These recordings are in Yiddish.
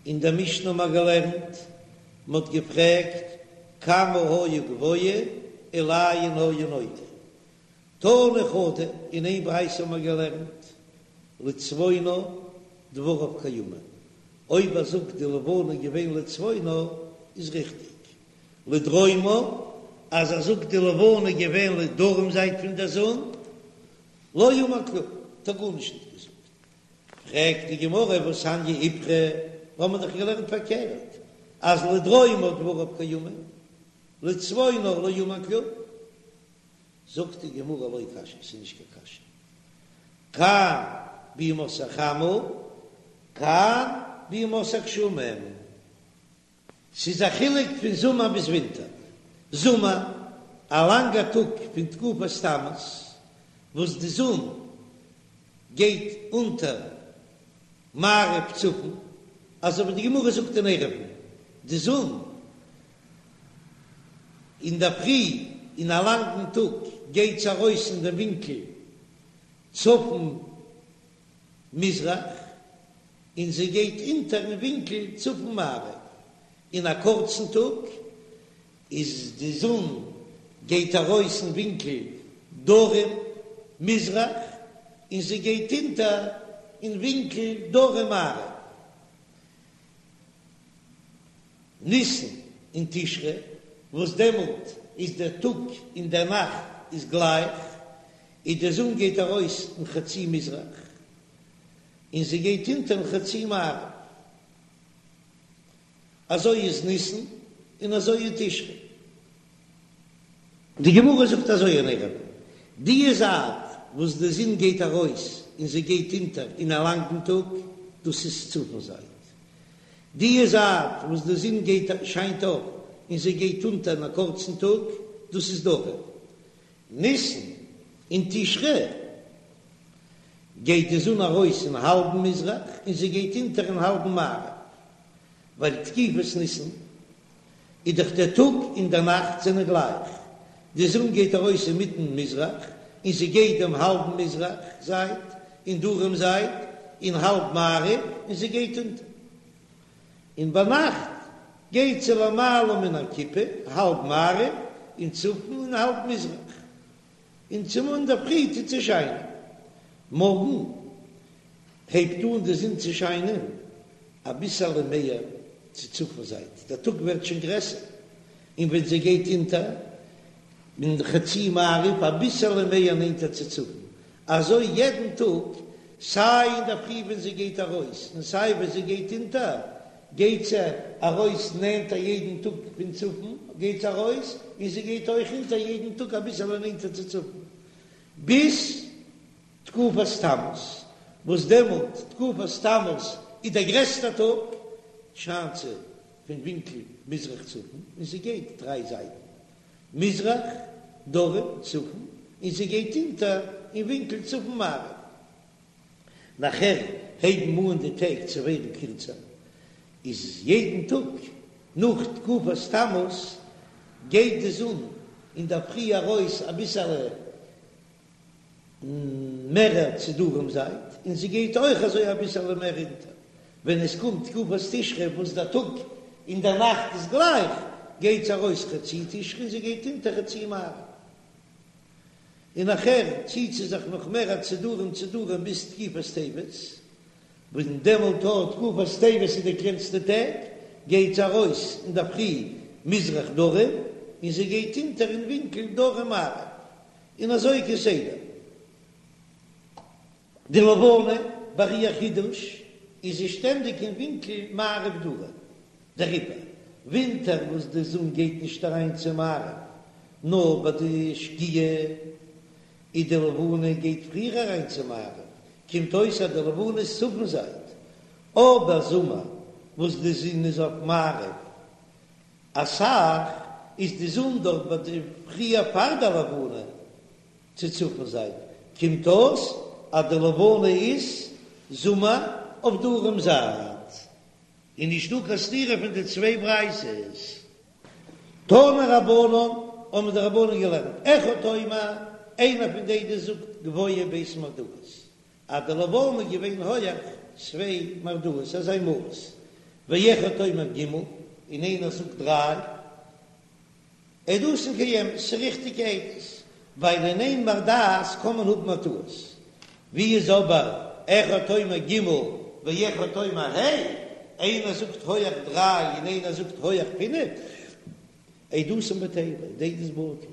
אין דער משנה האבן מיר געלערנט, מען האט געפרעגט כמה היה גבוה ולאין היה נוטה. תנא חדא, אין איין ברייתא האבן מיר געלערנט, לצפונה דבריו קיימין, אויב ער זאגט די לבנה איז געווען לצפונה איז ריכטיג, לדרומה אז ער זאגט די לבנה איז געווען לדרום זייט פון דער זון, לא אמר כלום, האט ער גארנישט נישט געזאגט. פרעגט די גמרא והתניא איפכא, האבן מיר דאך געלערנט פארקערט אז לדרומה דבריו קיימין, לצפונה לא אמר כלום. זאגט די גמרא לא קשיא, ס'איז נישט קיין קשיא, כאן בימות החמה, כאן בימות הגשמים. ס'איז א חילוק פון זומער ביז ווינטער. זומער, א לאנגע טאג פון תקופת תמוז, וואס די זון גייט אונטער מערב צפון, אזוי ווי די גמרא זאגט אין עירובין, די זון אינדערפרי אין א לאנגן טאג גייט זי ארויס אין דעם ווינקל צפון מזרח, און זי גייט אונטער אין ווינקל צפון מערב. אין א קורצן טאג איז די זון גייט ארויס אין ווינקל דרום מזרח און זי גייט אונטער אין ווינקל דרום מערב. ניסן און תשרי וואס דעמאלט איז דער טאג און דער נאכט איז גלייך, איז די זון גייט ארויס אין חצי מזרח און זי גייט אונטער אין חצי מערב. אזוי איז ניסן און אזוי איז תשרי. די גמרא זאגט אזוי אין עירובין, די זייט וואס די זון גייט ארויס און זי גייט אונטער אין א לאנגן טאג, דאס איז צפון זייט. די זייט וואס די זון גייט שיינט אויף און זי גייט אונטער אין א קורצן טאג, דאס איז דרום. ניסן און תשרי גייט די זון ארויס אין האלבן מזרח און זי גייט אונטער אין האלבן מערב, ווייל תקופת ניסן איז דאך דער טאג און דער נאכט זענען גלייך, די זון גייט ארויס אינמיטן מזרח און זי גייט דעם האלבן מזרח זייט און דרום זייט און האלב מערב און זי גייט אונטער, און ביינאכט גייט זי למעלה מן הכיפה, האלב מערב און צפון און האלב מזרח. און צומאל אינדערפרי טוט זי שיינען. מארגן הייבט אן די זון צו שיינען אביסעלע מער צו צפון זייט, דער טאג ווערט שוין גרעסער, און ווען זי גייט אונטער אין חצי מערב אביסעלע מער נענטער צו צפון, אזוי יעדן טאג, סיי אינדערפרי ווען זי גייט ארויס און סיי ווען זי גייט אונטער, גייט זי ארויס נענטער יעדן טאג פון צפון גייט זי ארויס, און זי גייט אויך אונטער יעדן טאג אביסעלע נענטער צו צפון, ביז תקופת תמוז, וואס דעמאלט תקופת תמוז איז דער גרעסטער טאג, שיינט זי פון ווינקל מזרח צפון, און זי גייט דריי זייטן, מזרח, דרום, צפון, און זי גייט אונטער אין ווינקל צפון מערב. נאכער הייבן אן די טעג צו ווערן קירצער, איז יעדן טאג נאך תקופת תמוז גייט די זון אינדערפרי ארויס אביסעלע מערער צו דרום זייט, און זי גייט אויך אזוי אביסעלע מער אונטער. ווען עס קומט תקופת תשרי וואס דער טאג און דער נאכט איז גלייך, גייט זי ארויס חצי תשרי און זי גייט אונטער חצי מערב. און נאכער ציט זי זיך נאך מער צו דרום צו דרום ביז תקופת טבת, וואס דעמאלט אט תקופת טבת איז די קלענסטע טעג, גייט זי ארויס אינדערפרי מזרח דרום און זי גייט אונטער אין ווינקל דרום מערב, און אזוי כסדר. די לבנה ביי איר חידוש איז זי שטענדיג אין ווינקל מערב דרום, דעריבער ווינטער וואס די זון גייט נישט אריין צו מערב נאר ביי די שקיעה, איז די לבנה גייט פריער אריין צו מערב, קומט אויס אז די לבנה איז צפון זייט, אבער זומער וואס די זון איז אויף מערב אסאך, איז די זון דארט ביי די פריער פאר די לבנה, צו צפון זייט, קומט אויס אז די לבנה איז זומער אויף דרום זייט, און נישט דא קיין סתירה פון די צוויי ברייתות. תנו רבנן, האבן די רבנן געלערנט, אחד אומר, איינער פון די עדות זאגט גבוה ב' מרדעות, אז די לבנה איז געווען הויעך צוויי מרדעות, אזא מאס. ואחד אומר ג' און איינער זאגט דריי, עדותן קיימת, ס'איז ריכטיגע עדות, ווייל אין איין בר דעת קען מען האבן א טעות. ווי איז אבער אחד אומר ג' ואחד אומר ה', איינער זאגט הויעך דריי און איינער זאגט הויעך פינף, עדותן בטלה, די עדות בטל,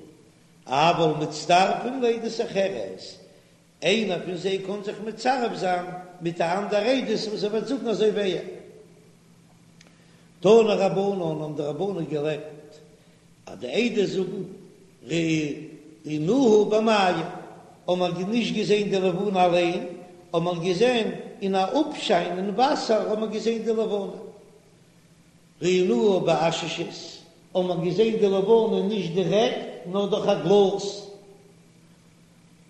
אבל מצטרפין לעדות אחרת, איינער פון זיי קען זיך מצרף זיין מיט א אנדער עדות וואס ער וועט זאגן אזוי ווי ער. תנו רבנן האבן די רבנן געלערנט אז די עדות זאגן ראינוה במים, האבן מיר נישט געזען די לבנה אליין, האבן מיר געזען אין א אפשיין אין וואסער האבן מיר געזען די לבנה. ראינוה בעששית, האבן מיר געזען די לבנה נישט דירעקט נאר דורך א גלאז.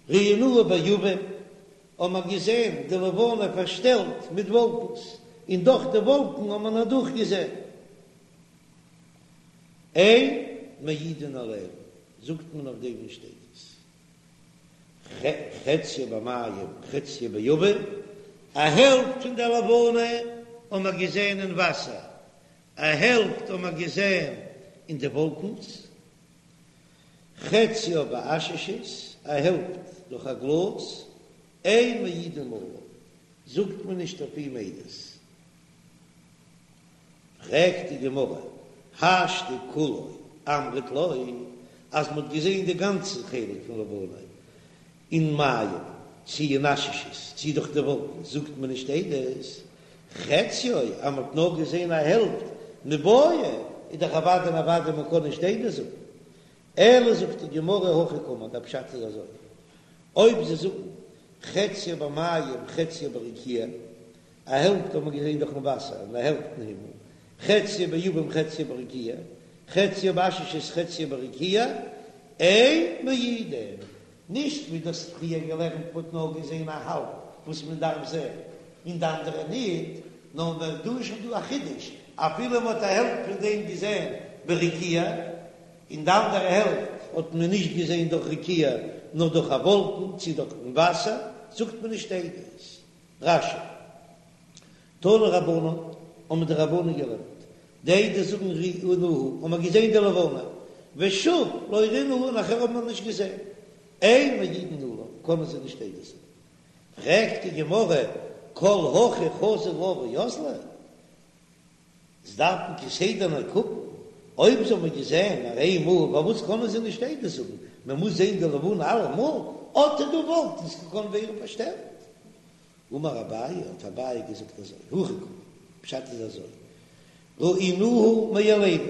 ראינוה בעבים, האבן מיר געזען די לבנה פארשטעלט מיט וואלקנס, און דורך די וואלקן האט מען אדורך געזען. אין מעידין עליה, זאגט מען אויף דעם נישט עדות. חציה במים חציה בעבים, א העלפט פון די לבנה האבן מיר געזען אין וואסער, א העלפט האבן מיר געזען אין די וואלקנס. חציה בעששית, א העלפט דורך א גלאז, אין מעידין עליו, זאגט מען נישט אויף אים עדות. פרעגט די גמרא, השתא כולו אמרת לא, אז מ'האט געזען די גאנצע חלק פון לבנה אין מים, צי אין עששית, צי דורך די וואלקן, זאגט מען נישט עדות, חציו, אז מ'האט נאר געזען א העלפט מיבעיא, איז דאך אוודאי און אוודאי מ'קען נישט עדות זאגן. אלא זאגט די גמרא הכי קאמר, דער פשט איז אזוי, אויב זיי זאגן חציה במים חציה ברקיע, א העלפט האט מען געזען דורכן וואסער און א העלפט אין הימל, חציה בעבים חציה ברקיע, חציה בעששית חציה ברקיע, אין מעידין, נישט ווי דו האסט פריער געלערנט מ'האט נאר געזען א האלב וואס מען דארף זען און די אנדערע ניט, נאר מען דא איז שוין דא א חידוש, אפילו מען האט א העלפט פון דעם געזען ברקיע, און די אנדערע העלפט האט מען נישט געזען דורך רקיע נאר דורך א וואלקן צי דורכן וואסער, זאגט מען נישט עדות. רש"י. תנו רבנן, האבן די רבנן געלערנט, די עדות זאגן ראינוה, האבן מיר געזען די לבנה, ושוב לא ראינוה, נאכער האבן מיר נישט געזען, אין מעידין עליו, קענען זיי נישט עדות זאגן. פרעגט די גמרא, כל הכי חזו לה ואזלי? זיי דארפן כסדר נאר קוקן, אויב זיי האבן געזען נאר איין מאל, פארוואס קענען זיי נישט עדות זאגן? מען מוז זען די לבנה אלעמאל, אט איז דא וואלקנס קען ווערן פארשטעלט. אמר אביי, האט אביי געזאגט אזוי, הכי קאמר, פשט איז אזוי, ראינוה מאלינו,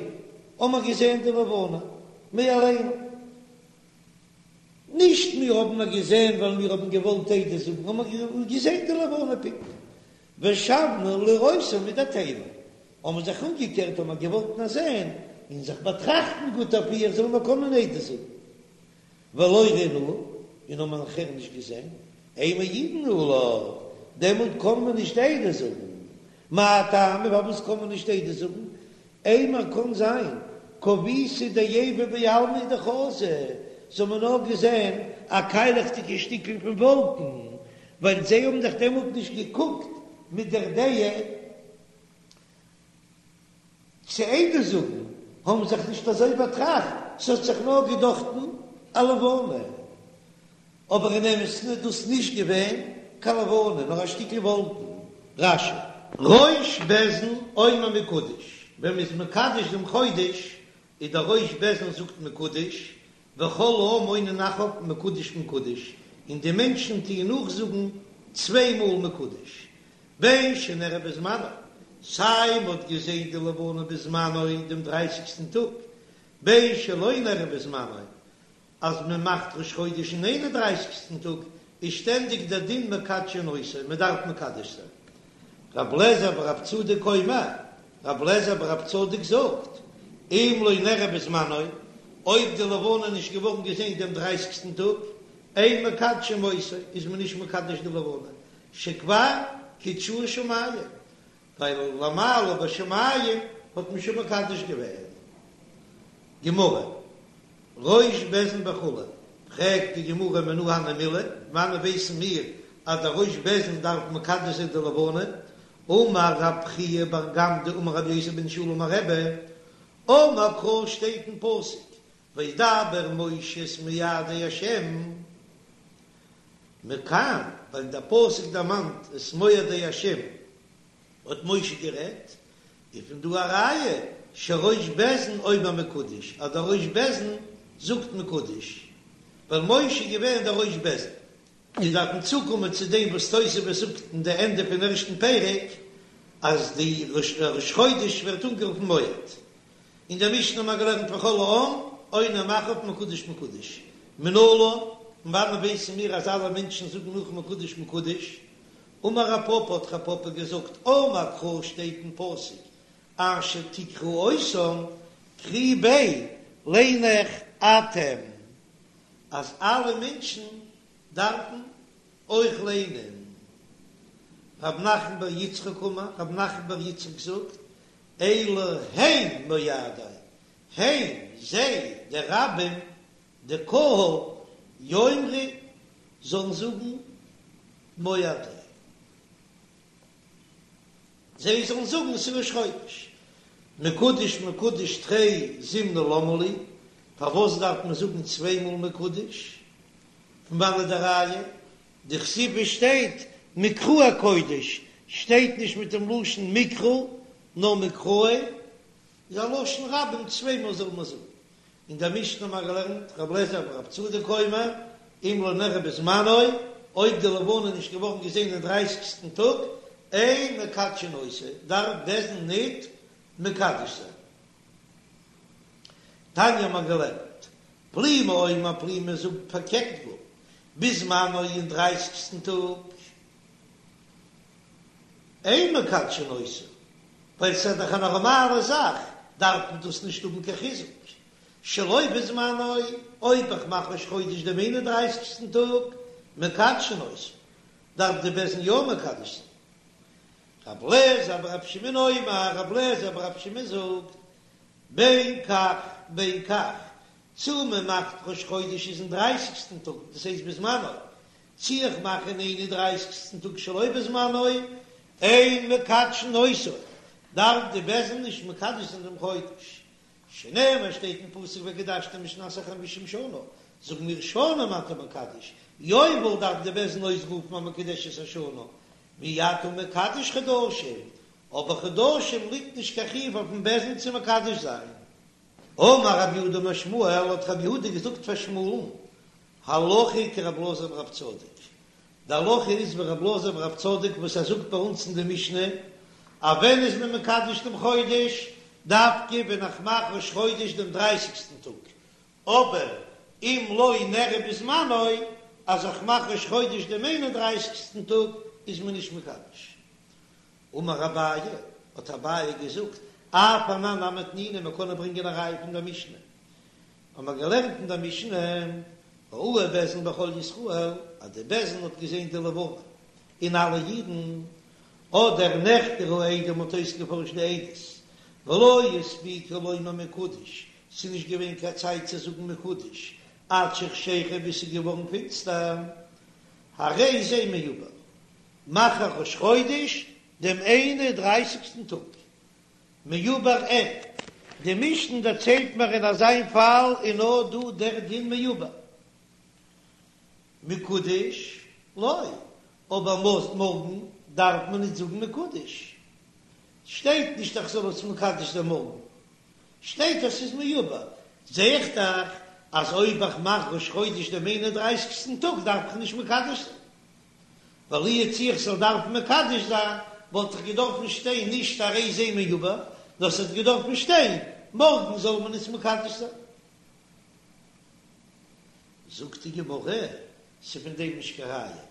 האבן מיר געזען די לבנה מאלינו, נישט מיר האבן נאר געזען ווייל מיר האבן געוואלט עדות זאגן, האבן מיר געזען די לבנה פונקט, ושבנו לראותה מדעתנו, האבן מיר זיך אומגעקערט האבן מיר געוואלט נאר זען און זיך באטראכטן גוט אויף איר זאלן מיר קענען עדות זאגן. ולא ראינוה, און האבן מיר נאכער נישט געזען, אין מעידין עליו, דעמאלט קען מען נישט עדות זאגן. מאי טעמא, פארוואס קען מען נישט עדות זאגן? אימר קען זיין, כוביתא דעיבא בעלמא הוא דחזו, זיי האבן נאר געזען א קיילעכדיגע שטיקל פון וואלקן, ווייל זיי האבן דאך דעמאלט נישט געקוקט מיט דער דעה צו עדות זאגן, האבן זיך נישט אזוי באטראכט, ס'האט זיך נאר געדאכטן א לבנה, אבער אין אמת'ן איז דאס נישט געווען קיין לבנה, נאר א שטיקל וואלקן. רש"י. ראש בית דין אומר מקודש, ווען מ'איז מקדש דעם חודש, איז דער ראש בית דין זאגט מקודש, וכל העם עונין אחריו מקודש מקודש, און די מענטשן טוען נאכזאגן צוויי מאל מקודש, בין שנראה בזמנו, סיי מ'האט געזען די לבנה בזמנו דעם דרייסיגסטן טאג, בין שלא נראה בזמנו, אז מען מאכט ראש חודש אין איין און דרייסיגסטן טאג, איז שטענדיג דער דין מקדשין אותו, מען דארף מקדש זיין. רב לעזער ברב צדוק אומר, רב לעזער ברב צדוק זאגט, אם לא נראה בזמנו, אויב די לבנה איז נישט געווארן געזען דעם דרייסיגסטן טאג, אין מקדשין אותו, איז מען נישט מקדש די לבנה, שכבר קידשוה שמים, ווייל למעלה בשמים האט מען שוין מקדש געווען. גמרא, ראש בית דין וכו', פרעגט די גמרא מנא הני מילי, וואנען ווייסן מיר אז דער ראש בית דין דארף מקדש זיין די לבנה? אמר רב חייא בר גמדא אמר רבי יוסי בן שאול אמר רבי, אמר קרא שטייט אין פסוק וידבר משה את מועדי השם, מכאן ווייל דער פסוק דערמאנט את מועדי השם האט משה גערעדט, איז פון דא א ראיה שראש בית דין אומר מקודש אז דער ראש בית דין זאגט מקודש, ווייל משה איז געווען דער ראש בית דין. מיר דארפן צוקומען צו דעם וואס תוספות זאגט אין די ענדע פון ערשטן פרק אז די ראש חודש ווערט אנגערופן מועד. אין דער משנה האבן מיר געלערנט וכל העם עונים אחריו מקודש מקודש מנלן, פון וואנען ווייסן מיר אז אלע מענטשן זאגן נאך מקודש מקודש? אמר רב פפא האט רב פפא געזאגט אמר קרא שטייט אין פסוק אשר תקראו אותם קרי ביה ליין איך אתם אז אלע מענטשן דארפן אויך ליינען. רב נחמן בר יצחק אמר, רב נחמן בר יצחק זאגט, אלו הן מועדי, הן, זיי, די רבים, די קהל, יאמרו, זאלן זאגן מועדי. זיי זאלן זאגן ס'איז ראש חודש. מקודש מקודש תרי זימני למה לי, פארוואס דארף מען זאגן צוויי מאל מקודש? פון וואנעט די ראיה? דכתיב שטייט מקראי קודש, שטייט נישט מיט דעם לשון מקרא, נאר מקראי איז א לשון רבים צוויי מאל זאל מען זאגן. אין דער משנה האבן מיר געלערנט ר' אליעזר בר' צדוק אומר, אם לא נראה בזמנו, אויב די לבנה איז נישט געווארן געזען אין דרייסיגסטן טאג, אין מקדשין אותו, דארף בית דין ניט מקדש זיין. תניא האבן מיר געלערנט, פלימי אומר פלימי זאגט פארקערט גאר, בזמנו אין דרייסיגסטן טאג, אין מקדשין אותו, ווייל ס'איז דאך א נארמאלע זאך, דארף מען דאס נישט האבן קיין חיזוק. שלא בזמנו, אויב איך מאך ראש חודש דעם איין און דרייסיגסטן טאג, מקדשין אותו, דארף די בית דין יא מקדש זיין. רב לעזער ברב שמעון אומר, רב לעזער ברב שמעון זאגט, בין כך בין כך, צו מען מאכט ראש חודש איז אין דרייסיגסטן טאג, דאס הייסט בזמנו, צי איך מאך אין איין און דרייסיגסטן טאג שלא בזמנו, אין מקדשין אותו, דארף די בית דין נישט מקדש זיין דעם חודש, שנאמר שטייט אין פסוק וקדשתם את שנת החמישים שנה, זאגן מיר שנים אתה מקדש, יובל דארף די בית דין אויסרופן אז מקודשת השנה, ואי אתה מקדש חדשים, אבער חדשים ליגט נישט קיין חיוב אויפן בית דין צו מקדש זיין. אמר רב יהודה אמר שמואל, האט רב יהודה געזאגט פאר שמואל'ן, הלכה כרב אלעזר ברב צדוק, די הלכה איז ווי רב אלעזר ברב צדוק וואס ער זאגט ביי אונז אין די משנה, אז ווען איז מען מקדש דעם חודש, דווקא ווען איך מאך ראש חודש דעם דרייסיגסטן טאג, אבער אם לא נראה בזמנו, אז איך מאך ראש חודש דעם איין און דרייסיגסטן טאג, איז מען נישט מקדש. אמר אביי, האט אביי געזאגט, אף אנן נמי תנינא, מען קען ברענגען א ראיה פון דער משנה, האבן מיר געלערנט אין דער משנה, ראוהו בית דין וכל ישראל, אז די בית דין האט געזען די לבנה און אלע אידן, אדער נחקרו העדים מ'האט אויסגעפארשט די עדות, ולא הספיקו לומר מקודש, ס'איז נישט געווען קיין צייט צו זאגן מקודש, עד שחשיכה ביז ס'איז געווארן פינסטער, הרי זה מעובר, מאך איך ראש חודש דעם איין און דרייסיגסטן טאג. מעובר אין. די משנה דערציילט מיר אין אזיין פאל איז נאר דא דער דין מעובר. מקודש לא, אבער מארגן דארף מען נישט זאגן מקודש. שטייט נישט איך זאל עס מקדש זיין מארגן. שטייט אז ס'איז מעובר. זע איך דאך אז אויב איך מאך ראש חודש דעם איין און דרייסיגסטן טאג דארף איך נישט מקדש זיין. ווייל לו יצוייר איך זאל דארפן מקדש זיין, וואלט איך געדארפן שטיין נישט הרי זה מעובר, נאר ס'האט געדארפן שטיין מארגן זאל מען עס מקדש זיין. זאגט די גמרא, ס'איז פון דעם נישט קיין ראיה,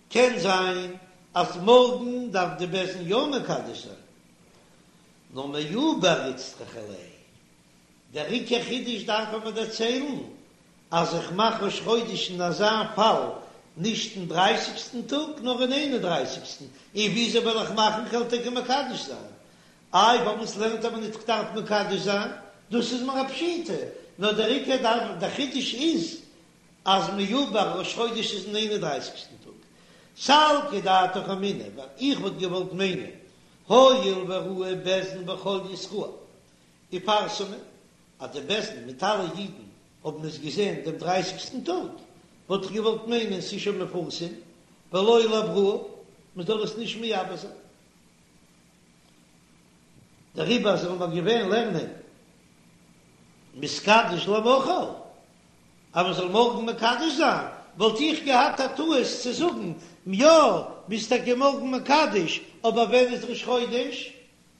קען זיין אז מארגן דארף די בית דין יא מקדש זיין, נאר מעובר איצטריכא ליה, דער עיקר חידוש דארף ער מיר דערציילן אז איך מאך ראש חודש אין אזא פאל נישט אין דרייסיגסטן טאג נאר אין איין און דרייסיגסטן, און וויאזוי וועל איך מאכן כ'וועל טאקע מקדש זיין? איי פארוואס לערנט ער מיר ניט כ'דארף מקדש זיין? דאס איז מיר א פשיטא, נאר דער עיקר דארף דער חידוש איז אז מעובר ראש חודש איז אין איין און דרייסיגסטן טאג. סלקא דעתך אמינא, ווייל איך וואלט געוואלט מיינען. הואיל וראוהו בית דין וכל ישראל ופרסמוה, אז די בית דין מיט אלע אידן האבן עס געזען דעם דרייסיגסטן טאג, וואלט איך געוואלט מיינען ס'איז שוין מפורסם, ולא לעברוה, מ'זאל עס נישט מעבר זיין. דעריבער זאל מען געווען לערנען מתקדש למחר, אז מען זאל מארגן מקדש זיין, וואלט איך געהאט א טעות צו זאגן, יא, מ'איז טאקע מארגן מקדש, אבער ווען איז ראש חודש?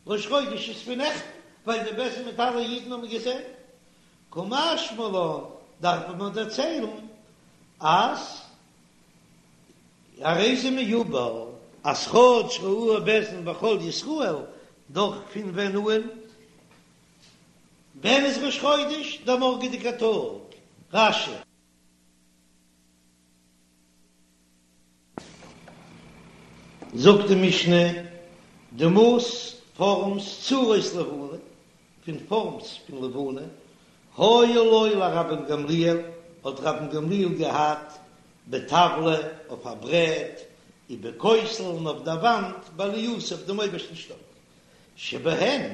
ראש חודש איז פון נעכטן, ווייל די בית דין מיט אלע אידן האבן געזען. קא משמע לן, דארף מען מיר דערציילן אז הרי זה מעובר, אז כאטש ראוהו בית דין וכל ישראל, דאך פון ווען אן? ווען איז ראש חודש? דער מארגעדיגער טאג. רש"י. זאגט די משנה, דמות פארמס צורות לבנה, פון פארמס פון לבנה, היו לו לרבן גמליאל, האט רבן גמליאל געהאט בטבלא אויף א ברעט, ובכותל און אויף דער וואנט בעלייתו אויף דעם אויבערשטן שטאק, שבהן,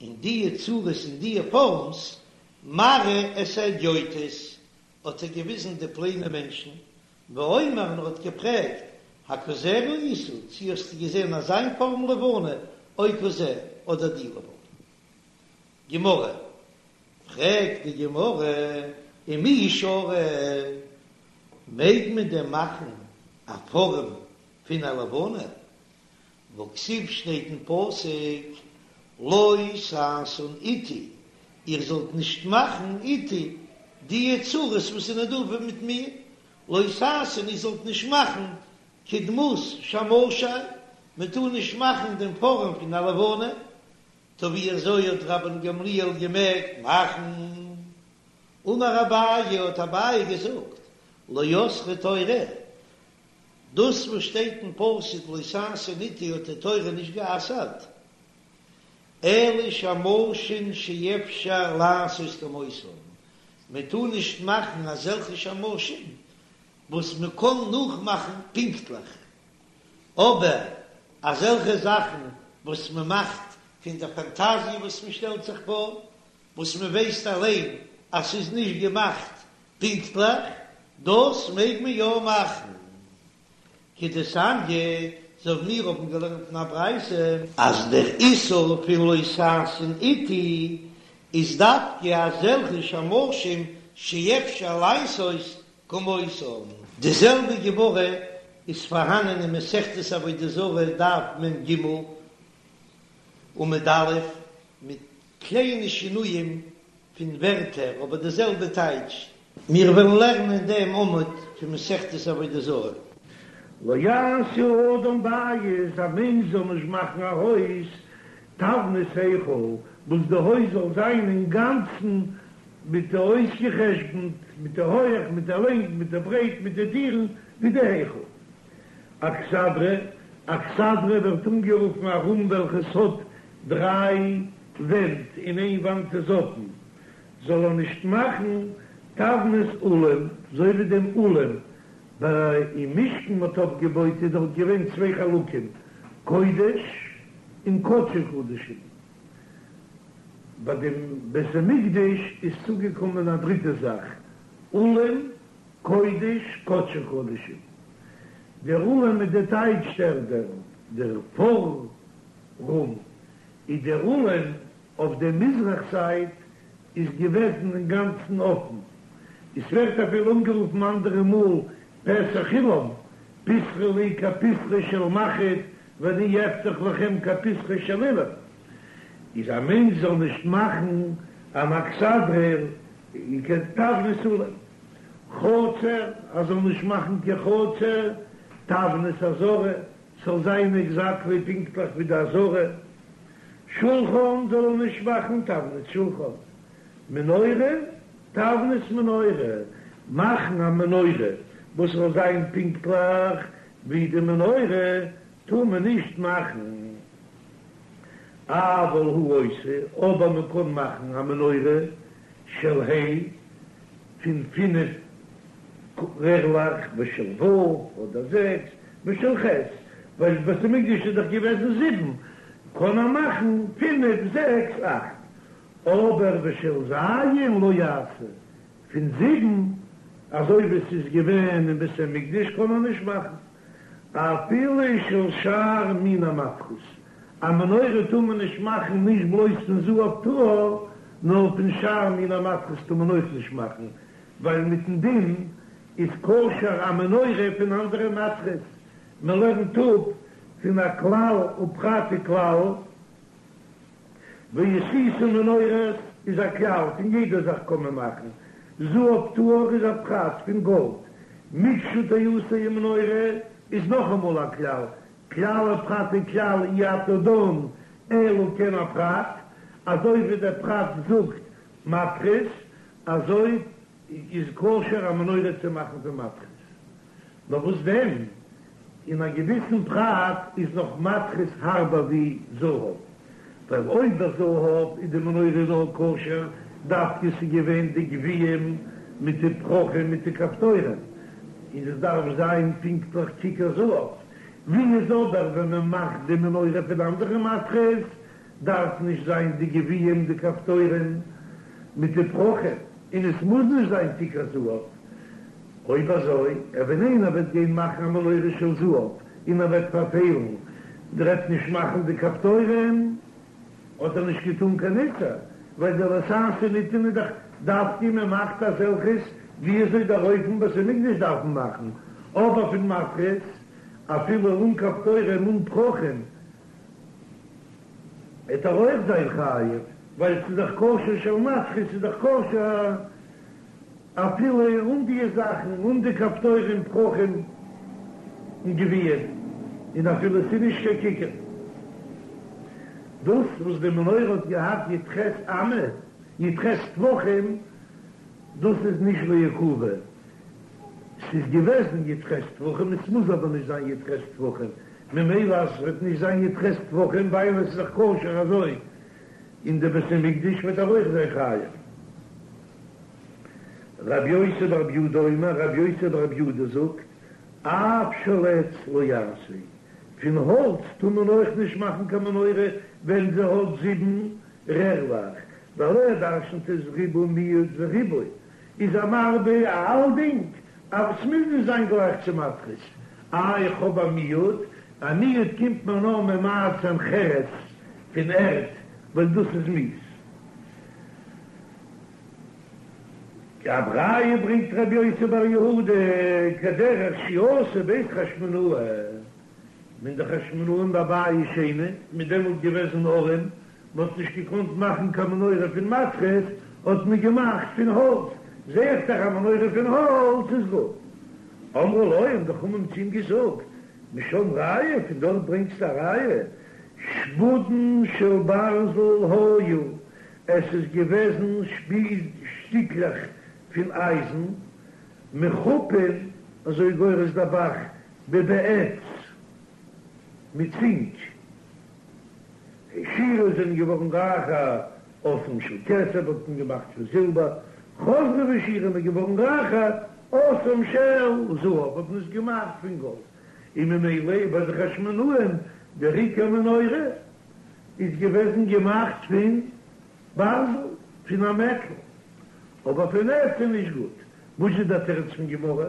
אין דיע צורות און דיע פארמס, מראה את ההדיוטות, האט ער געוויזן די פלעינע מענטשן, ואומר און ער האט געפרעגט, הכזה ראית, צי האסטו געזען אזיין פארם לבנה, או כזה, אדער די לבנה. גמרא, פרעגט די גמרא, ומי שרי, מעג מען דען מאכן א פארעם פון א לבנה? והכתיב שטייט אין פסוק לא תעשון אתי, איר זאלט נישט מאכן אתי די צורות וואס זענען דא מיט מיר, לא תעשון איר זאלט נישט מאכן כדמות שמשי, מען טאר נישט מאכן דעם פארעם פון א לבנה, טא ווי אזוי האט רבן גמליאל געמעגט מאכן? אמר אביי האט אביי געזאגט לא אסרה תורה, דאס וואס שטייט אין פסוק לא תעשון אתי האט די תורה נישט גע'אסר'ט, אלא שמשים שאפשר לעשות כמותם, מען טאר נישט מאכן אזעלכע שמשים וואס מען קען נאכמאכן פונקטליך, אבער אזעלכע זאכן וואס מען מאכט פון די פאנטאזיע וואס מען שטעלט זיך פאר, וואס מען ווייסט אליין אז ס'איז נישט געמאכט פונקטליך, דאס מעג מען יא מאכן. כדתניא, אזוי ווי מיר האבן געלערנט אין א ברייתא, אז דער איסור פון לא תעשון אתי איז דווקא אזעלכע שמשים שאפשר לעשות כמותם. די זעלבע גמרא איז פארהאנען אין מסכת עבודה זרה דף מ"ג עמוד א', מיט קליינע שינויים פון ווערטער אבער די זעלבע טייטש. מיר וועלן לערנען דעם עמוד פון מסכת עבודה זרה. לא יעשה האדם בית, א מענטש זאל נישט מאכן א הויז, תבנית היכל, וואס די הויז זאל זיין אינגאנצן מיט די אויסגעחשבונט, מיט די הויעך, מיט די לענג, מיט די ברייט, מיט די טירן, ווי די היכל. אכסדרה, אכסדרה ווערט אנגערופן א רום וועלכעס האט דריי ווענט און איין וואנט איז אפן, זאל ער נישט מאכן תבנית אולם, אזוי ווי דעם אולם ביי אין משכן מ'האט אויפגעבויט איז דארט געווען צוויי חלקים, קודש און קדשי קדשים, ביי דעם בית המקדש איז צוגעקומען א דריטע זאך, אולם קודש קדשי קדשים, דער אולם איז די טייטש דער דער דער פאר-רום, איז דער אולם אויף דער מזרח זייט איז געוועזן אינגאנצן אפן, עס ווערט אפילו אנגערופן אנדערע מאל פתח אולם, פתחו לי כפתחו של מחט ואני אפתח לכם כפתחו של אולם, איז א מענטש זאל נישט מאכן אן אכסדרה כתבנית אולם, חצר, ער זאל נישט מאכן קיין חצר, תבנית עזרה, ס'זאל זיין עקזעקטלי פונקטליך ווי די עזרה, שולחן זאל ער נישט מאכן תבנית שולחן, מנורה תבנית מנורה, מאכן א מנורה וואס זאל זיין פונקטליך ווי די מנורה טאר מען נישט מאכן, אבל הוא עושה, אבער מען קען מאכן א מנורה של ה' פון פינף רערלעך ושל ו' אדער זעקס ושל ח', ווייל בית המקדש איז דאך געוועזן זיבן. קען ער מאכן פינף זעקס אכט, אבער ושל ז' לא יעשה, פון זיבן אזוי ווי עס איז געווען אין בית המקדש קען ער נישט מאכן, אפילו של שאר מיני מתכות, א מנורה טאר מען נישט מאכן נישט בלויז פון זהב טהור, נאר פון שאר מיני מתכות טאר מען אויך נישט מאכן, ווייל מיטן דין איז כשר א מנורה פון אנדערע מתכות, מען לערנט אפ פון א כלל ופרט וכלל, ועשית מנורת איז א כלל, פון יעדע זאך קען מען מאכן, זהב טהור איז א פרט פון גאלד, מקשה תעשה ומנורה איז נאכאמאל א כלל, כלל ופרט וכלל אי אתה דן אלא כעין הפרט, אזוי ווי דער פרט זאגט מתכות, אזוי איז כשר א מנורה צו מאכן פון מתכות. נאר וואס דען, אין א געוויסן פרט איז נאך מתכות הארבער ווי זהב, ווייל אויב ביי זהב איז די מנורה נאר כשר דווקא ס'איז געווען די גביעים מיט די פרחים מיט די כפתורים, און עס דארף זיין פונקטליך ככר זהב, ווי איז אבער ווען מען מאכט די מנורה פון אנדערע מתכות דארף נישט זיין די גביעים די כפתורים מיט די פרחים, און עס מוז נישט זיין ככר זהב. אויב אזוי, ווען איינער וועט גיין מאכן א מנורה של זהב און ער וועט פארפעלן, ער וועט נישט מאכן די כפתורים, האט ער נישט געטאן קיין איסור, ווייל די לא תעשון איז דאך דווקא מען מאכט אזעלכעס ווי אזוי דער אופן בית המקדש דארף מען מאכן, אבער פון מתכות אפילו אן כפתורים אן פרחים וועט ער אויך זיין חייב, ווייל ס'איז דאך כשר של מתכות איז דאך כשר. אפילו אן די זאכן, אן די כפתורים, פרחים און גביעים, און אפילו ס'איז נישט קיין ככר. דאס וואס די מנורה האט געהאט י"ח אמה, י"ח טפחים, דאס איז נישט לעיכובא, ס'איז געוועזן י"ח טפחים, עס מוז אבער נישט זיין י"ח טפחים, ממילא אז ס'וועט נישט זיין י"ח טפחים ווייל עס איז דאך כשר אזוי אין די בית המקדש וועט ער אויך זיין חייב. רבי יוסי ברבי יהודה אומר, רבי יוסי ברבי יהודה זאגט, אף של עץ לא יעשה, פון האלץ טאר מען אויך נישט מאכן קיין מנורה ווען זי האט זיבן רערלעך, ווייל ער דרשנ'ט עס ריבוי מיעוט וריבוי איז ער מרבה אלדינג, אבער ס'מוז נישט זיין גלייך צו מתכות, איי איך האב א מיעוט, א מיעוט קומט מען נאר ממעט זיין חרס פון ערד ווייל דאס איז מיאוס. א ראיה ברענגט רבי יוסי בר יהודה כדרך שעשו בית חשמונאי, ווען די חשמונאים בבית שני מ'איז דעמאלט געוועזן ארעם, מען האט נישט געקאנט מאכן קיין מנורה פון מתכות, האט מען געמאכט פון האלץ, זע איך דאך א מנורה פון האלץ איז גוט. אמרו לו, האבן די חכמים צו אים געזאגט, משם ראיה, פון דארט ברענגסטו א ראיה, שפודין של ברזל היו, עס איז געוועזן שפיז שטיקלעך פון אייזן, מחופין, אזוי גורס דער ב"ח, בבעץ, מיט צינק. העשירו זענען געווארן רייכער, עשאום של כסף האט מען געמאכט פון זילבער, חזרו והעשירו מ'איז געווארן רייכער, עשאום של זהב האט מען עס געמאכט פון גאלד, און ממילא ביי די חשמונאים דער עיקר מנורה איז געוועזן געמאכט פון ברזל, פון א מעטל, אבער פון עץ איז נישט גוט. וואס איז דער תירוץ פון גמרא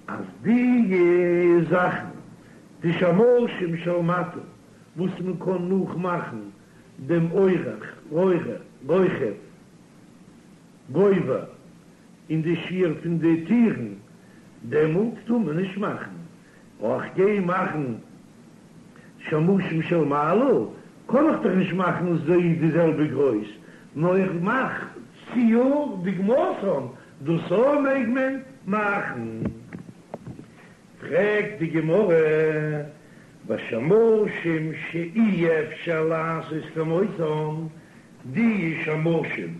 אז די זאכן די שמשים של מטה וואס מען קען נאכמאכן דעם אורך, רוחב, גובה און די שיעור פון די טירן, דעמאלט טאר מען נישט מאכן אויך גיי מאכן שמשים של מעלה, קען איך דאך נישט מאכן זיי די זעלבע גרויס, נאר איך מאך ציור דוגמתן, דאס אויך מעג מען מאכן. פרעגט די גמרא, ושמשים שאי אפשר לעשות כמותם, די שמשים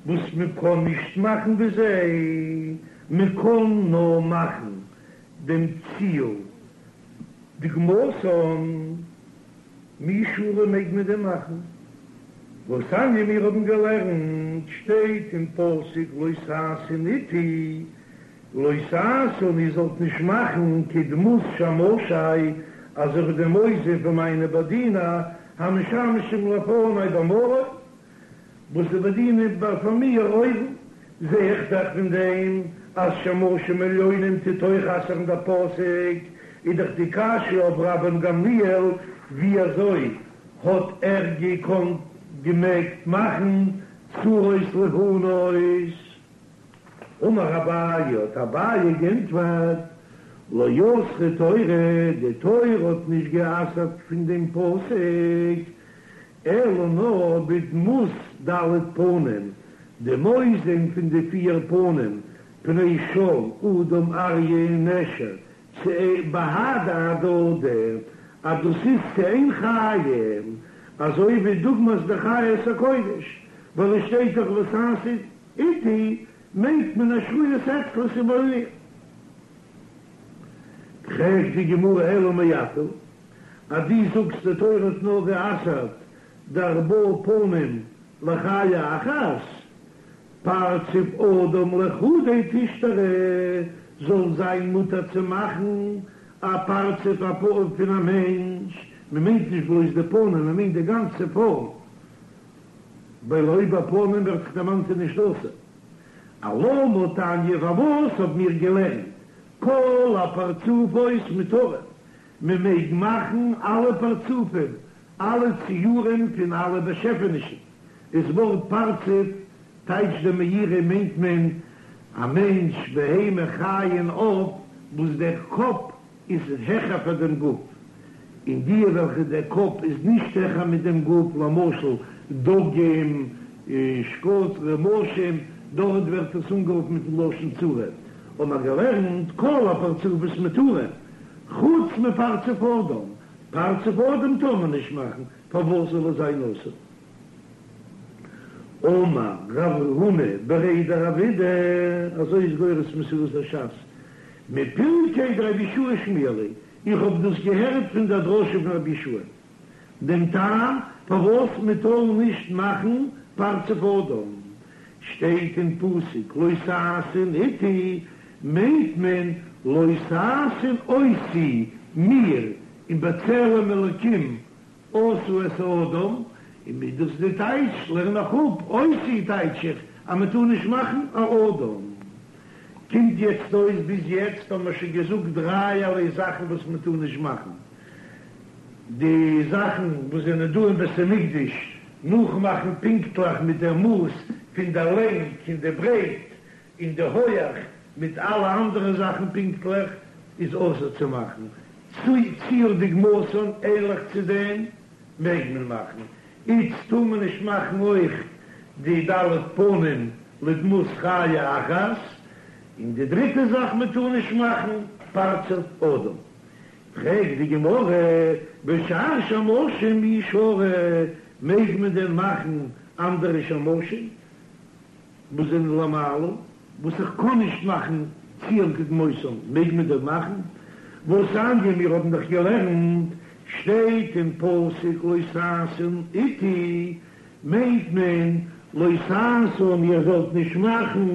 וואס מען קען נישט מאכן ווי זיי, מען קען נאר מאכן דעם ציור דוגמתן, מי שרי מעג מען דען מאכן? והתניא מיר האבן געלערנט, שטייט אין פסוק לא תעשון אתי, לא תעשון איר זאלט נישט מאכן כדמות שמשי, אזוי ווי דעם אויסזען פון מיינע באדינער. המשמשים לפני במרום, וואס זיי באדינען ביי פאר מיר אויבן, זע איך דאך פון דעם אז שמשים עליונים טוט אויך אסר'ן דער פסוק, איז דאך די קשיא אויף רבן גמליאל ווי אזוי האט ער געקאנט געמעגט מאכן צורות לבנות? אמר אביי, האט אביי גענטפערט, לא אסרה תורה, די תורה האט נישט גע'אסר'ט פון דעם פסוק, אלא נאר בדמות ד' פנים, דעם אויסזען פון די פיר פנים, פני שור, אדם, אריה און נשר, צו בהדי הדדי, אז דאס איז צו איין חיה, אזוי ווי דוגמת די חיות הקודש, ווייל עס שטייט דאך לא תעשון אתי, מיינט מען השרויות אצלו ס'איז ביי מיר. פרעגט די גמרא אלא מעתה, אז דו זאגסט די תורה האט נאר גע'אסר'ט די ארבעה פנים לחיה אחת, פרצוף אדם לחודיה תשתרי, זאל זיין מותר צו מאכן א פרצוף א פנים פון א מענטש, מען מיינט נישט בלויז די פנים, מען מיינט די גאנצע פארם, ווייל אויב א פנים ווערט דאך דערמאנט איז נישט אסור. אלמה תניא פארוואס האב מיר געלערנט כל הפרצופות מותרין, מען מעג מאכן אלע פרצופים, אלע ציורים פון אלע באשעפענישן, דאס ווארט פרצוף טייטשט דער מאירי מיינט מען א מענטש, בהמה, חיה און עוף וואס דער קאפ איז העכער פאר דעם גוף, און די וועלכע דער קאפ איז נישט העכער מיט דעם גוף, למשל דגים, שקץ, רמשים, דארט ווערט עס אנגערופן מיטן לשון צורה, האבן מיר געלערנט כל הפרצופות מותרין, חוץ מפרצוף אדם, פרצוף אדם טאר מען נישט מאכן, פארוואס זאל עס זיין אסור? אמר רב הונא בריה דרב אידי, אזוי איז גורס מסורת הש"ס, מפרקיה דרבי יהושע שמיע לי, איך האב דאס געהערט פון דער דרשה פון רבי יהושע, דעם טעם פארוואס מען טאר נישט מאכן פרצוף אדם, שטייט אין פסוק לא תעשון אתי, מיינט מען לא תעשון אותי, מיר, און בצלם אלקים עשה את האדם, און מיט דאס די טייטש לערן איך אפ, אותי טייטש איך אז מען טאר נישט מאכן א אדם. קומט יעצט אויס ביז יעצט האבן מיר שוין געזאגט דרייערליי זאכן וואס מען טאר נישט מאכן, די זאכן וואס זענען דא אין בית המקדש נאכמאכן פונקטליך מיט דער מאס פון דער לענג און די ברייט און די הויעך מיט אלע אנדערע זאכן פונקטליך איז אסור צו מאכן, ציור דוגמתן ענליך צו דעם מעג מען מאכן, איצט טאר מען נישט מאכן אויך די ד' פנים לדמות חיה אחת, און די דריטע זאך מען טאר נישט מאכן פרצוף אדם. פרעגט די גמרא, ושאר שמשים מי שרי, מעג מען דען מאכן אנדערע שמשים? וואס זענען למעלה, וואס איך קען נישט מאכן ציור כדמותם, מעג מען דען מאכן? והתניא, מיר האבן דאך געלערנט, שטייט אין פסוק לא תעשון אתי, מיינט מען לא תעשון איר זאלט נישט מאכן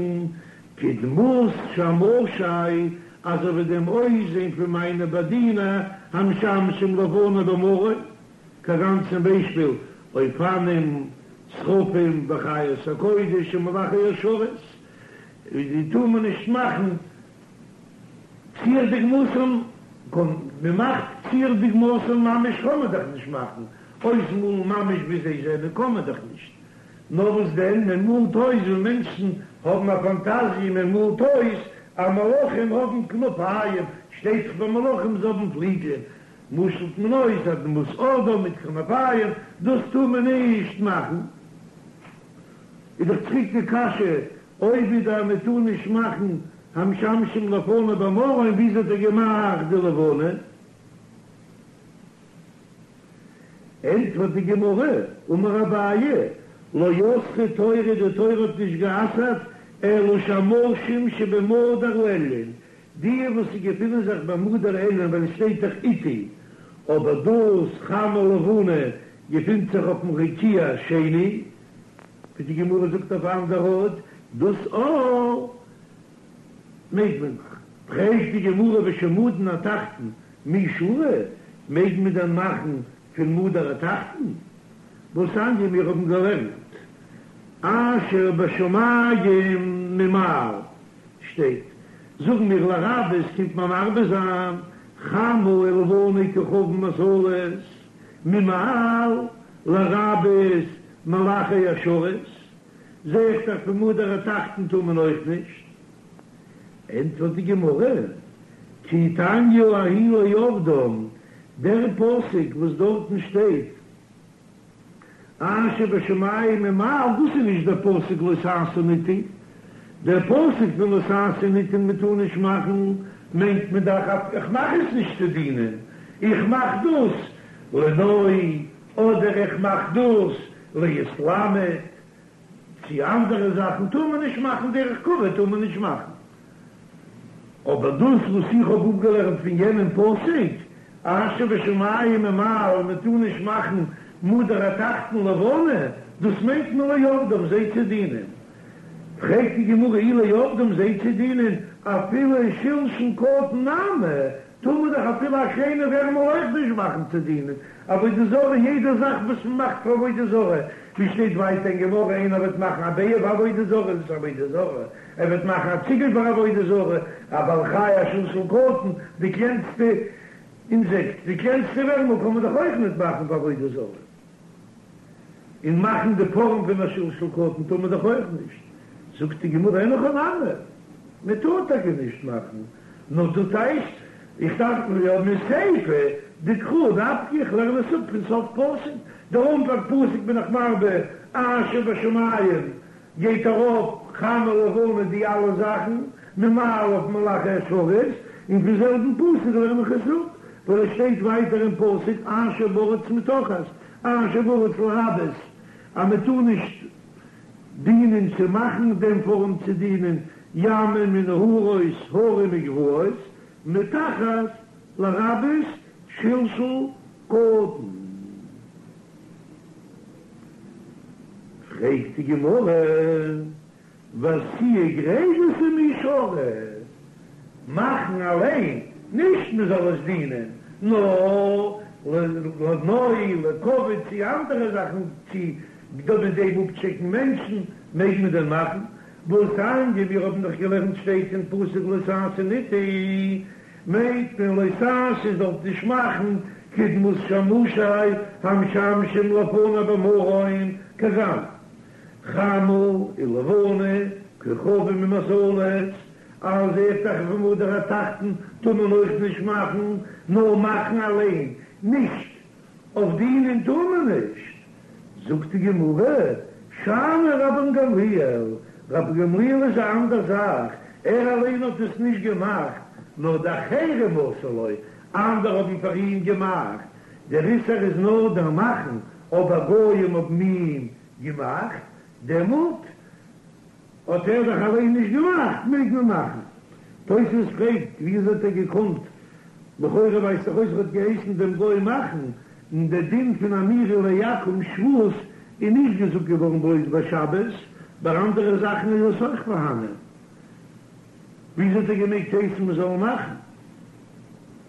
כדמות שמשי, אזוי ווי דעם אויסזען פון מיינע באדינער המשמשים לפני במרום, כגון צום ביישפיל אופנים, שרפים וחיות הקודש און מלאכי השרת, די טאר מען נישט מאכן ציור דוגמתן, מען מאכט ציור דוגמתן ממש קען מען דאך נישט מאכן, אויסמאלן ממש ווי זיי זענען קען מען דאך נישט, נאר וואס דען מען מאלט אויס ווי מענטשן האבן א פאנטאזיע מען מאלט אויס אז מלאכים האבן כנפיים, שטייט דאך ביי מלאכים זיי האבן פליגלען, משל'ט מען אויס א דמות אדם מיט כנפיים, דאס טאר מען נישט מאכן. איז דאך צוריק די קשיא, אויב איז דא מען טאר נישט מאכן המשמשים לפני במרום, וויאזוי האט ער געמאכט די לבנה? ענטפערט די גמרא, אמר אביי, לא אסרה תורה, די תורה האט נישט גע'אסר'ט, אלא שמשים שבמדור העליון, די וואס געפינען זיך במדור העליון ווייל עס שטייט דאך אתי, אבער דאס חמה לבנה געפינט זיך אויפן רקיע השני, ווי די גמרא זאגט אויף אן אנדער ארט, דאס אויך מעג מען מאכן. פרעגט די גמרא ושמדין התחתון מי שרי, מעג מען דען מאכן? פון מדור התחתון? והתניא מיר האבן געלערנט אשר בשמים ממעל שטייט, זאגן מיר לרבות קומט מען מרבה זיין חמה ולבנה כוכבים ומזלות ממעל לרבות מלאכי השרת, זע איך דאך פון מדור התחתון טאר מען אויך נישט. ענטפערט די גמרא, כי תניא ההיא לעובדם, דער פסוק וואס דארטן שטייט אשר בשמים ממעל, דאס איז נישט דער פסוק לא תעשון אתי, דער פסוק פון לא תעשון אתי מען טאר נישט מאכן, מיינט מען דאך אז איך מאך עס נישט צו דינען, איך מאך דאס לנוי, אדער איך מאך דאס להתלמד. צו אנדערע זאכן טאר מען נישט מאכן, דרך כבוד טאר מען נישט מאכן, אבער דאס וואס איך האב אפגעלערנט פון יענעם פסוק אשר בשמים ממעל מען טאר נישט מאכן מדור התחתון לבנה, דאס מיינט מען לעובדם זיי צו דינען. פרעגט די גמרא אי לעובדם זיי צו דינען אפילו שלשול קטן נמי, טאר מען דאך אפילו א קליינע ווערמל אויך נישט מאכן צו דינען עבודה זרה, יעדע זאך וואס מען מאכט פאר עבודה זרה, ווי שטייט ווייטער אין גמרא איינער וועט מאכן א ביעה פאר עבודה זרה איז עס עבודה זרה, ער וועט מאכן א ציגל פאר עבודה זרה, א בעל חי א שלשול קטן, די קלענסטע אינזעקט, די קלענסטע ווערמל קען מען דאך אויך נישט מאכן פאר עבודה זרה. און מאכן די פארעם פון א שלשול קטן טאר מען דאך אויך נישט, זאגט די גמרא אין הכי נמי, מען טאר טאקע נישט מאכן, נאר דא טייטש איך דארף יא מסיפא דקרא נפקא, איך לערן עס אפ פון סוף פסוק, דער אנפאנג פסוק בין איך מרבה אשר בשמים גייט ארויף חמה לבנה די אלע זאכן ממעל אויף מלאכי השרת, און פון זעלבן פסוק לערן איך עס אפ, ווייל עס שטייט ווייטער אין פסוק אשר בארץ מתחת אשר בארץ לרבות אז מען טאר נישט דינען צו מאכן דעם פארעם צו דינען ימים ונהרות הרים וגבעות מתחת לרבות שלשול קטן. פרעגט די גמרא, ועשייה גרידתא מי שרי, מאכן אליין, נישט מען זאל עס דינען, נאר לנוי, לכבוד, צו אנדערע זאכן, צו מיט דעם אפטשעקן מענטשן, מעג מען דען מאכן? והתניא, מיר האבן דאך געלערנט שטייט אין פסוק לא תעשון אתי, מיינט מען לא תעשו זאלסט נישט מאכן כדמות שמשי המשמשים לפני במרום כגון חמה ולבנה כוכבים ומזלות אז זע איך דאך פון מדור התחתון טאר מען אויך נישט מאכן נאר מאכן אליין נישט אויף דינען טאר מען נישט, זאגט די גמרא, שאני רבן גמליאל, רבן גמליאל איז א אנדער זאך, ער אליין האט עס נישט געמאכט, נאר דאחרים עשו לו, אנדערע האבן פאר אים געמאכט, דער איסור איז נאר דער מאכן, אבער גויים האבן אים געמאכט, דעמאלט האט ער דאך אליין נישט געמאכט, מעג מען מאכן. תוספות פרעגט, וויאזוי האט ער געקאנט, לכאורה ווייזט דאך אויס ער האט געהייסן דעם גוי מאכן, און דער דין פון אמירה לעכו"ם שבות איז נישט געזאגט געווארן בלויז ביי שבת, ביי אנדערע זאכן איז עס אויך פארהאנען. וויאזוי האט ער געמעגט הייסן מען זאל מאכן?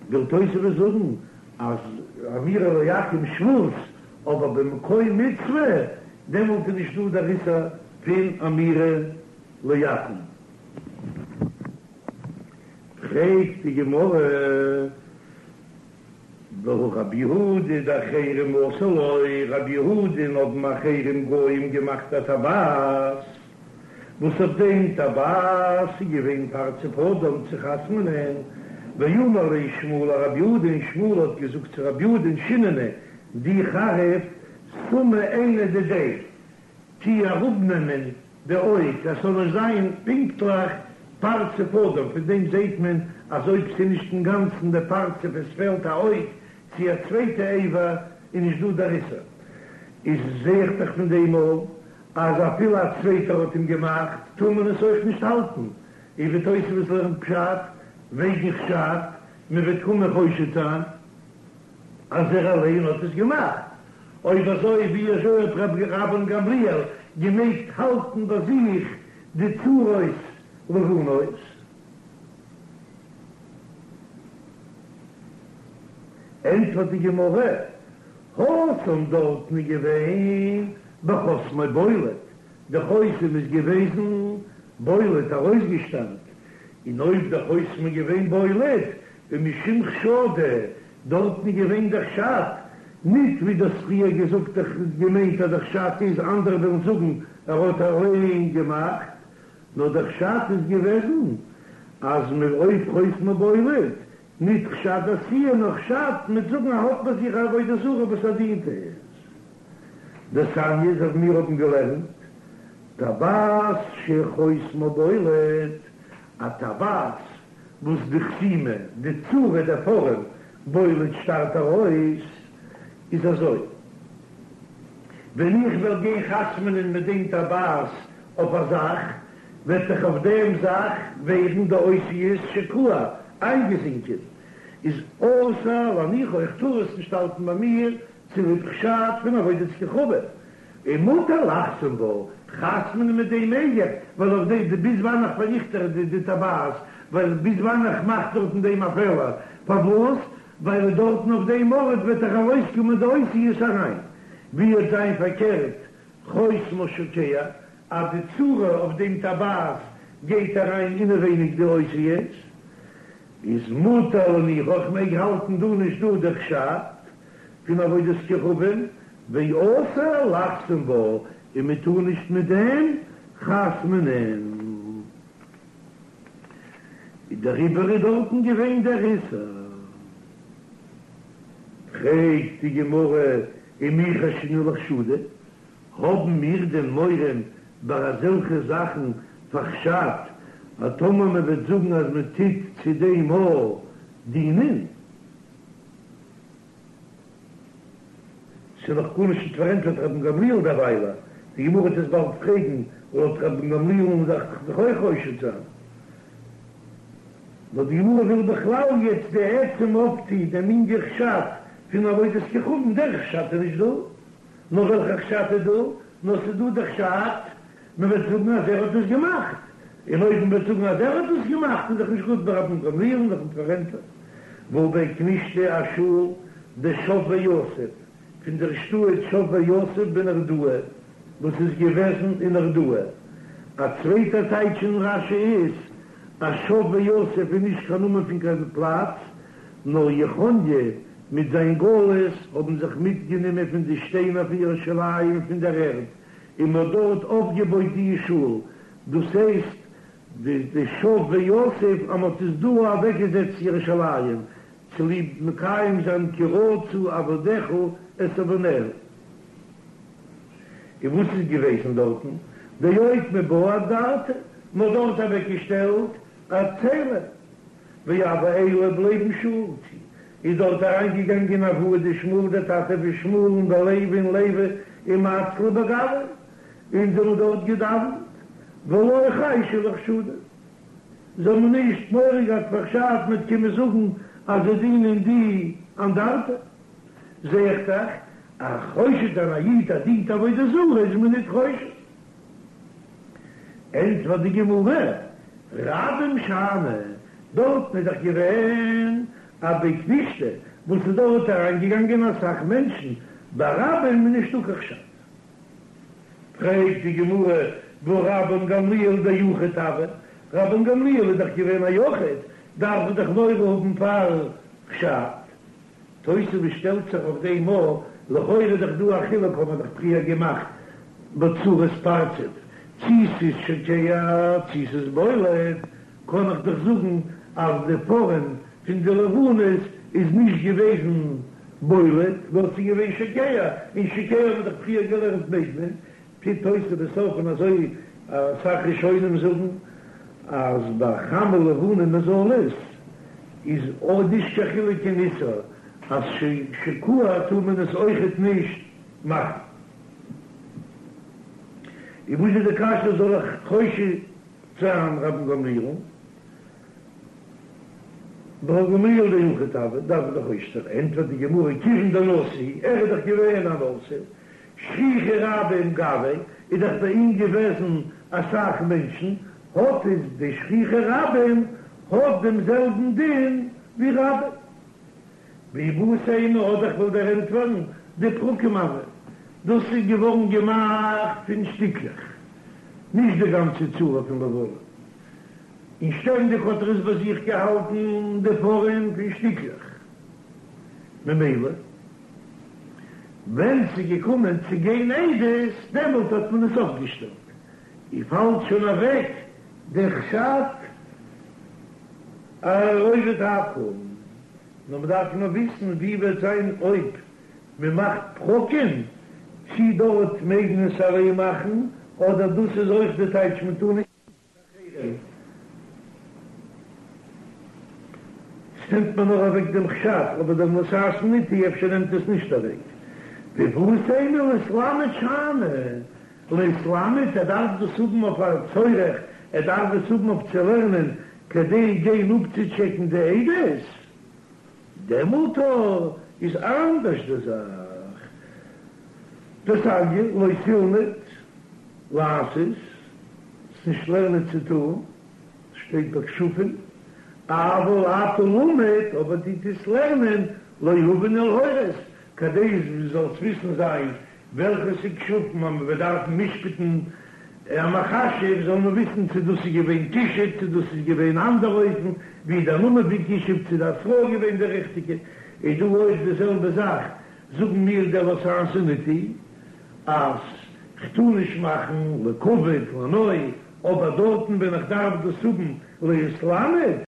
וויל תוספות זאגן אז אמירה לעכו"ם שבות, אבער במקום מצוה, דעמאלט איז נישט דא דער איסור פון אמירה לעכו"ם. פרעגט די גמרא, והא רבי יהודה דאחרים עשו לו, רבי יהודה'ן האבן אחרים גוים געמאכט א טבעת, וואס אויף דעם טבעת איז געווען פרצוף אדם צו חתמ'נען, ואמר ליה שמואל לרבי יהודה, און שמואל האט געזאגט צו רבי יהודה'ן שיננא, דו חריף סמי עינא דידיה, טו אראפנעמען די אויג אז ס'זאל נישט זיין פונקטליך פרצוף אדם, פון דעם זעהט מען אז אויב ס'איז נישט אינגאנצן די פרצוף עס פעלט א אויג צו א צווייטע אבר איז נישט דא דער איסור, איז זעה איך דאך פון דעם אויך אז אפילו א צווייטער האט אים געמאכט טאר מען עס אויך נישט האלטן, און ווי תוספות לערנט פשט וועגן חשד מען וועט קומען חושד זיין אז ער אליין האט עס געמאכט, אויב אזוי ווי אזוי האט רבן גמליאל געמעגט האלטן ביי זיך די צורות לבנות? ענטפערט די גמרא, התם דארטן איז געווען בחותמו בולט, די חותם איז געוועזן בולט ארויסגעשטארט, און אויב די חותם איז געווען בולט ומשום חשדא, דארטן איז געווען דער חשד, ניט ווי דו האסט פריער געזאגט איך געמיינט אז דער חשד איז אנדערע וועלן זאגן ער האט אליין געמאכט, נאר דער חשד איז געוועזן אז מ אויב חותמו בולט, ניט חשד עשיה נאר חשד מ'וועט זאגן ער האט ביי זיך א עבודה זרה וואס ער דינט עס. דתניא אזוי ווי מיר האבן געלערנט טבעת שחותמה בולט, א טבעת וואס די חתימה, די צורה, דער פארעם, בולט שטארט ארויס, איז אזוי, ווען איך וועל גיין חתמ'נען מיט דעם טבעת אויף א זאך, וועט זיך אויף דעם זאך ווערן די אותיות שקוע, איינגעזינקען, איז אסור להניחה, איך טאר עס נישט האלטן ביי מיר צוליב חשד פון עבודת כוכבים, און מותר לחתום בה, חתמ'נען מיט דעם מעג איך, ווייל אויף דעם די ביז וואנען איך פארריכט איך די די טבעת, ווייל ביז וואנען איך מאך דארטן דעם א פעלער, פארוואס? ווייל דארטן אויף דעם ארט וועט דאך ארויסקומען די אותיות אריין, ווי וועט זיין פארקערט חותמה שוקע, אז די צורה אויף דעם טבעת גייט אריין אינעווייניג די אותיות, איז מותר להניחה, איך מעג האלטן דא נישט דא דער חשד פון עבודת כוכבים, ואסור לחתום בה, און מען טאר נישט מיט דעם חתמ'נען. איז דעריבער איז דארטן געווען דער איסור. פרעגט די גמרא ומי חיישינן לחשדא, האבן מיר דען מורא ביי אזעלכע זאכן פאר חשד, אז טאמער מען וועט זאגן אז מען טוט צו דעם א דינען? ס'איז נאך גארנישט נישט פארענטפערט רבן גמליאל דערוויילע, די גמרא וועט עס באלד פרעגן, לויט רבן גמליאל'ן דארף איך זיך אויך חושד זיין. נאר די גמרא וויל בכלל יעצט די עצם אויפטו דעם ענין חשד פון עבודת כוכבים, דער חשד איז נישט דא, נאר וועלכע חשד איז דא? נאר ס'איז דא דער חשד מען וועט זאגן אז ער האט עס געמאכט, און אויב מען וועט זאגן אז ער האט עס געמאכט איז דאך נישט גוט ביי רבן גמליאל דאך נישט פארענטפערט. והא בי כנישתא א שול דשב ויתיב פון דער שטאט שב ויתיב בנהרדעא וואס איז געוועזן אין נהרדעא. א צווייטע טייטש אין רש"י איז אז שב ויתיב איז נישט קיין נאמען פון קיין פלאץ, נאר יכניה מיט זיין גלות האבן זיך מיטגענומען פון די שטיינער פון ירושלים פון דער ערד און מען האט דארט אויפגעבויט די שול, דאס הייסט די די שב ויתיב אז מען האט עס דא אוועקגעזעצט ירושלים צוליב מקיים זיין כי רצו עבדיך את אבניה. און וואס איז געוועזן דארטן? דאוקמו בה אנדרטא, מען האט דארט אוועקגעשטעלט א צלם, והוו עיילא ליה בשול, איז דארט אריינגעגאנגען אבוה דשמואל דער טאטע פון שמואל'ן ולוי און לוי ומצלו בגווה, און זיי האבן דארט געדאווענט, ולא חיישו לחשדא, זיי האבן נישט מורא געהאט פאר חשד מ'וועט קומען זאגן אז זיי דינען די אנדרטא, זע איך דאך אז חושד זיין א איד אז דינט עבודה זרה איז מען ניט חושד. ענטפערט די גמרא, רבים שאני, דארטן איז דאך געווען א בי כנישתא וואס איז דארט אריינגעגאנגען אסאך מענטשן, ביי רבים איז נישטא קיין חשד. פרעגט די גמרא, והא רבן גמליאל דיחיד הוה, רבן גמליאל איז דאך געווען א יחיד, דארף ער דאך מורא האבן פאר חשד. תוספות שטעלט זיך אויף דעם א, לכאורה איז דאך דא א חילוק האט מען דאך פריער געמאכט בצורת פרצוף, צי ס'איז שוקע צי ס'איז בולט, קען איך דאך זאגן אז די פארעם פון די לבנות איז נישט געוועזן בולט נאר ס'איז געווען שוקע, און שוקע האט מען דאך פריער געלערנט מעג מען, טוט תוספות אויף און אזוי אסאך ראשונים זאגן אז ביי חמה לבנה מזלות איז אויך נישט קיין חילוק אין איסור אז שקוע טאר מען עס אויכעט נישט מאכן. און וואס איז די קשיא זאל איך חושד זיין רבן גמליאל'ן? רבן גמליאל דיחיד הוה דארף מען דאך חושש זיין, ענטפערט די גמרא כיוון דנשיא ער איז דאך געווען א נשיא שכיחי רבים גביה איז דאך ביי אים געוועזן אסאך מענטשן, האט איז די שכיחי רבים האט דעם זעלבן דין ווי רבים. ואיבעית אימא אדער איך וועל דיר ענטפערן. דפרקים הוה, דאס איז געווארן געמאכט פון שטיקלעך, נישט די גאנצע צורה פון לבנה, און שטענדיג האט ער עס ביי זיך געהאלטן די פארעם פון שטיקלעך, ממילא ווען ס'איז געקומען צו גיין עדות דעמאלט האט מען עס אויפגעשטעלט, און פאלט שוין אוועק דער חשד רובד העכו"ם, נאר מ'דארף נאר וויסן ווי וועט זיין אויב מ'מאכט פרקים, צי דארט מעג מען עס אליין מאכן, אדער דאס איז אויך די טייטש מ'טאר נישט אחרים. ס'נעמט מיר נאר אוועק דעם חשד, אבער דער לא תעשון אתי אפשר נעמט עס נישט אוועק. ואי בעית אימא להתלמד שאני, להתלמד, ער דארף דאס האבן אויף א צורך, ער דארף עס האבן אויף צו לערנען כדי גיין אפצוטשעקן די עדות, דעמאלט איז אנדערש די זאך. דתניא לא תלמד לעשות, נישט לערנען צו טון, שטייט ביי כשפים, אבל אתה למד, אבער דו טוסט לערנען, להבין ולהורות, כדי דו זאלסט וויסן זיין וועלכע ס'איז כשפים אז מ'וועט דארפן משפט'ן א מכשף זאל מען וויסן צו דאס איז געווען כישוף צו דאס איז געווען אנדער אופן ווי דער נאמען פון כישוף צו די התראה איז געווען די ריכטיגע, איז דא אויך די זעלבע זאך, זאגן מיר דער לא תעשון אתי אז כ'טאר נישט מאכן לכבוד לנוי, אבער דארטן ווען איך דארף דאס האבן להתלמד.